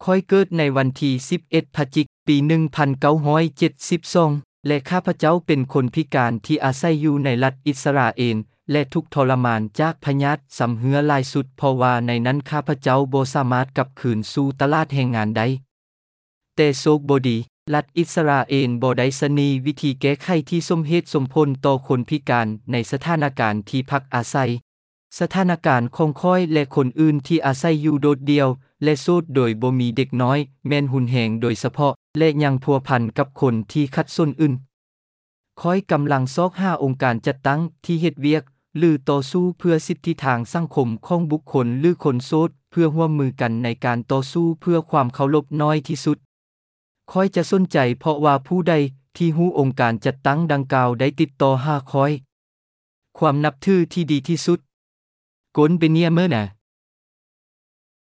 ຂ້ອຍເກີດໃນວັນທີສິບເອັດ ພະຈິກ ປີໜຶ່ງພັນເກົ້າຮ້ອຍເຈັດສິບສອງ ແລະ ຂ້າພະເຈົ້າເປັນຄົນພິການທີ່ອາໄສຢູ່ໃນລັດອິດສະຣາເອນ ແລະ ທຸກທໍລະມານຈາກພະຍາດຊຳເຮື້ອຫຼາຍສຸດ ເພາະວ່າໃນນັ້ນຂ້າພະເຈົ້າບໍ່ສາມາດກັບຄືນສູ່ຕະຫຼາດແຮງງານໄດ້. ແຕ່ໂຊກບໍ່ດີ, ລັດອິດສະຣາເອນບໍ່ໄດ້ສະໜີວິທີແກ້ໄຂທີ່ສົມເຫດສົມຜົນຕໍ່ຄົນພິການໃນສະຖານະການທີ່ພັກອາໄສ. ສະຖານະການຂອງຂ້ອຍ ແລະ ຄົນອື່ນທີ່ອາໄສຢູ່ໂດດດ່ຽວ ແລະ ໂສດໂດຍບໍ່ມີເດັກນ້ອຍ ແມ່ນຮຸນແຮງໂດຍສະເພາະ ແລະ ຍັງພົວພັນກັບຄົນທີ່ຂັດສົນອື່ນ. ຂ້ອຍກຳລັງຊອກຫາອົງການຈັດຕັ້ງທີ່ເຮັດວຽກ ຫຼື ຕໍ່ສູ້ເພື່ອສິດທິທາງສັງຄົມຂອງບຸກຄົນ ຫຼື ຄົນໂສດ ເພື່ອຮ່ວມມືກັນໃນການຕໍ່ສູ້ເພື່ອຄວາມເຄົາລົບໜ້ອຍທີ່ສຸດ. ຂ້ອຍຈະສົນໃຈເພາະວ່າຜູ້ໃດທີ່ຮູ້ອົງການຈັດຕັ້ງດັ່ງກ່າວໄດ້ຕິດຕໍ່ຫາຂ້ອຍ. ຄວາມນັບຖືທີ່ດີທີ່ສຸດ. ກົນເບເນຍເມີນາ